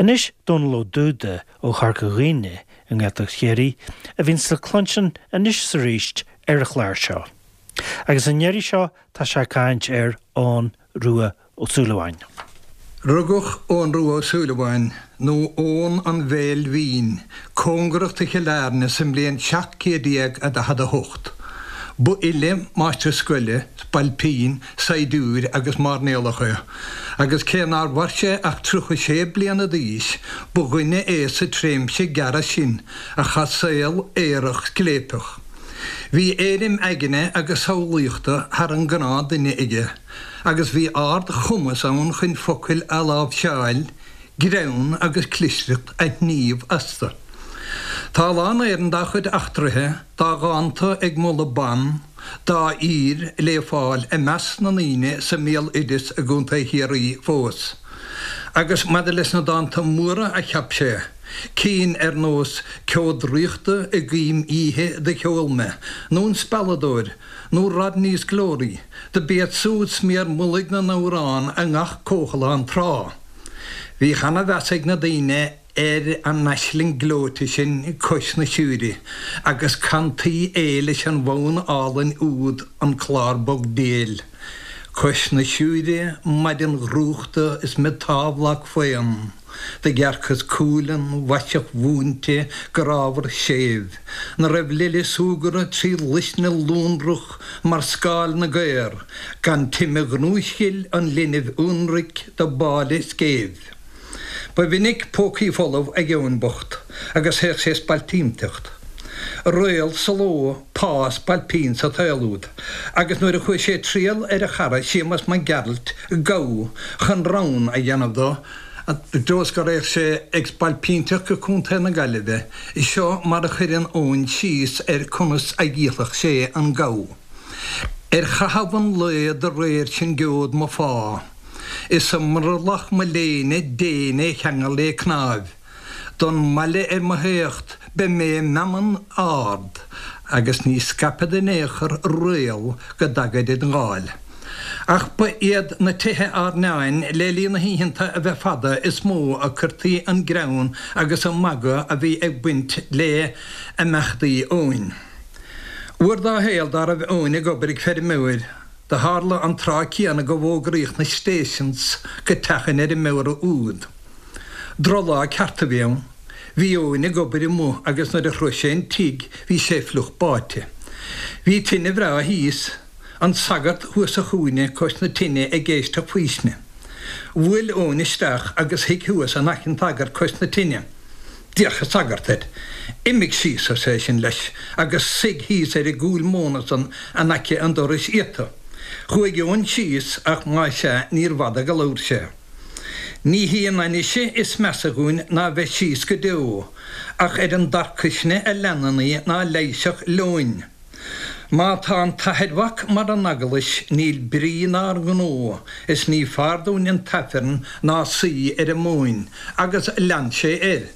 Anois Dónal Ó Dúda ó Chorca Dhuibhne i nGaeltacht Chiarraí a bhíonns le cluinstin anois is arís ar an chlár seo. Agus an iarraidh seo tá sé ag caint ar Eoghan Rua Ó Súilleabháin. Rugadh Eoghan Rua Ó Súilleabháin, nó Eoghan an Bhéil Bhinn, cóngarach do Chill Airne sa mbliain 1748. Ba fhile, máistir scoile, spailpín, saighdiúir agus mairnéalach é, agus cé nár mhair sé ach 36 bliana d'aois, ba dhuine é sa tréimhse gearr sin a chaith saol aerach scléipeach. Bhí éirim aigne agus samhlaíochta thar an ngnáth-duine aige, agus bhí ard-chumas ann chun focail a láimhseáil, greann agus clisteacht a shníomh astu. Tá a lán Éireann dá chuid eachtraithe, dá dhánta ag moladh ban, dá aoir le fáil i measc na ndaoine sa mbéaloideas i gContae Chiarraí fós. Agus maidir leis na dánta móra a cheap sé, cinn ar nós 'Ceo Draíochta i gCoim Oíche do Cheol Mé' nó 'An Spealadóir' nó 'Rodney's Glory', do b'iad súd sméar mullaigh na n-amhrán i ngach comhthalán tráth. Bhíodh ana-mheas ag na daoine ar an aisling gleoite sin cois na Siúire, agus cantaí é leis an bhfonn álainn úd An Clár Bog Déil. Cois na Siúire maidin dhrúchta is me támhlag faon. Do dhearcas cualann mhaiseach mhúinte grámhar séimh, 'na raibh lile súgartha 3 luisne lonrach mar scáil na gcaor, gan time ghnúisghil an linbh ionraic do báille scéimh. Ba mhinic pócaí folamh ag Eoin bocht agus théadh sé spailpínteacht. Réal sa ló, pá spailpín sa tsaol úd, agus nuair a chuaigh sé triall ar a chara Séamas Mac Gearailt, gabha, chun rann a dhéanamh dó, I dtreo is go raghadh sé ag spailpínteacht go Contae na Gaillimhe, seo mar a chuireann Eoin síos ar conas a dhíolfadh sé an gabha. Ar chaitheamh an lae do réir sin geobhad mo phá, Is i mbrollach mo léine déin é cheangal lé cnáimh, Don mbaile ar mo theacht beidh mé i meanman ard, Agus ní scaipfead in aon chor réal go dtagaid id ndáil. Ach ba iad na tithe airneáin le linn na hoícheanta a bheith fada is mó a cuirtí an greann agus an magadh a bhí ag baint le imeachtaí Eoin. Uair dá shaol dá raibh Eoin ag obair ag feirmeoir, do tharla an tráth céanna go bhfógraíodh na stations go teach an fheirmeora úd. Drochlá ceart a bhí ann. Bhí Eoin ag obair amuigh agus nuair a shroich sé an tigh bhí sé fliuch báite. Bhí tine bhreá thíos. An sagart thuas sa chúinne cois na tine ag éisteacht faoistine. Bhuail Eoin isteach agus shuigh thuas in aice an tsagairt cois na tine. D'fhéach an sagart air. Imigh síos, arsa eisean leis, agus suigh thíos ar an gcúil móna san in aice an dorais iata. Chuaigh Eoin síos ach más ea níor bhfada go labhair sé. Ní hí an ainnise is measa dhúinn ná bheith síos go deo, ach ar an dtarcaisne a leanann í ná leigheasfadh leoin. Má tá an t-athair-mhac mar an eaglais níl brí 'nár ngnó is ní fearr dúinn an t-aifreann ná suí ar an móin, agus lean sé air.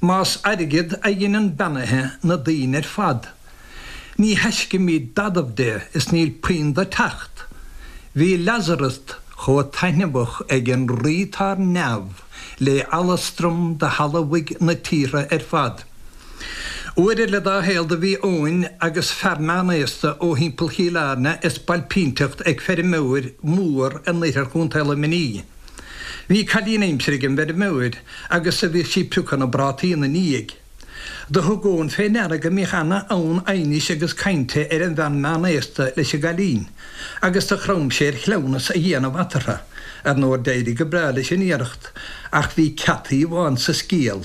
Más airgead a dheineann beannaithe na daoine ar fad, ní thaiscimíd dadamh de is níl puinn do teacht. Bhí Lazarus chomh taitneamhach ag an Rí 'tá ar neamh lé alastram do thalmhaigh na tíortha ar fad. Uair eile dá shaol do bhí Eoin agus fear meánaosta ó thimpeall Chill Airne ag spailpínteacht ag feirmeoir mór in oirthear Chontae Luimnigh. Bhí cailín aimsire ag an bhfeirmeoir agus do bhíodh sí ag piocadh na bprátaí ina ndiaidh. Do thug Eoin fé ndeara go mbíodh ana fhonn aighnis agus cainte ar an bhean meánaosta leis an gcailín agus do chrom sé ar chleamhnas a dhéanamh eatarthu. Ar ndóigh d'éirigh go breá leis an iarracht ach bhí ceataí amháin sa scéal.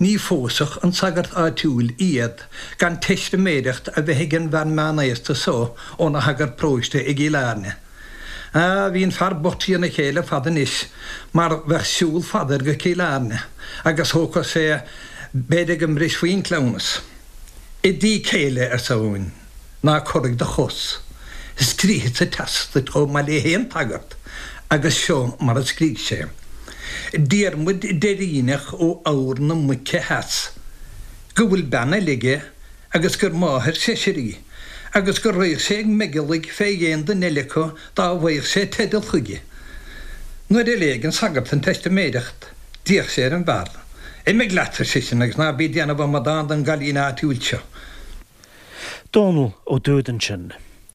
Ní phósfadh an sagart áitiúil iad gan teistiméireacht a bheith ag an bhfear meánaosta so óna shagart paróiste i gCill Airne. Á, bhí an fear bocht trína chéile ar fad anois, mar bheadh siúl fada air go Cill Airne, agus thógfadh sé, b'fhéidir go mbrisfí an cleamhnas. I dtigh céile, arsa Eoin. Ná corraigh do chos. Scríobhadsa teastas duit chomh maith le haon tsagart, agus seo mar a scrígh sé. Diarmuid Deiríneach ó Fheabhar na Muice Theas, go bhfuil bean eile aige agus gur máthair seisir í, agus go raghadh sé ag meigeallaigh fé dhéin duine eile acu dá bhfaigheadh sé teideal chuige. Nuair a léigh an sagart an teistiméireacht. D'fhéach sé ar an bhfear. Imigh leat, ar seisean, agus ná bí ag déanamh amadán den gcailín áitiúil seo. Dónall Ó Dúda ansin.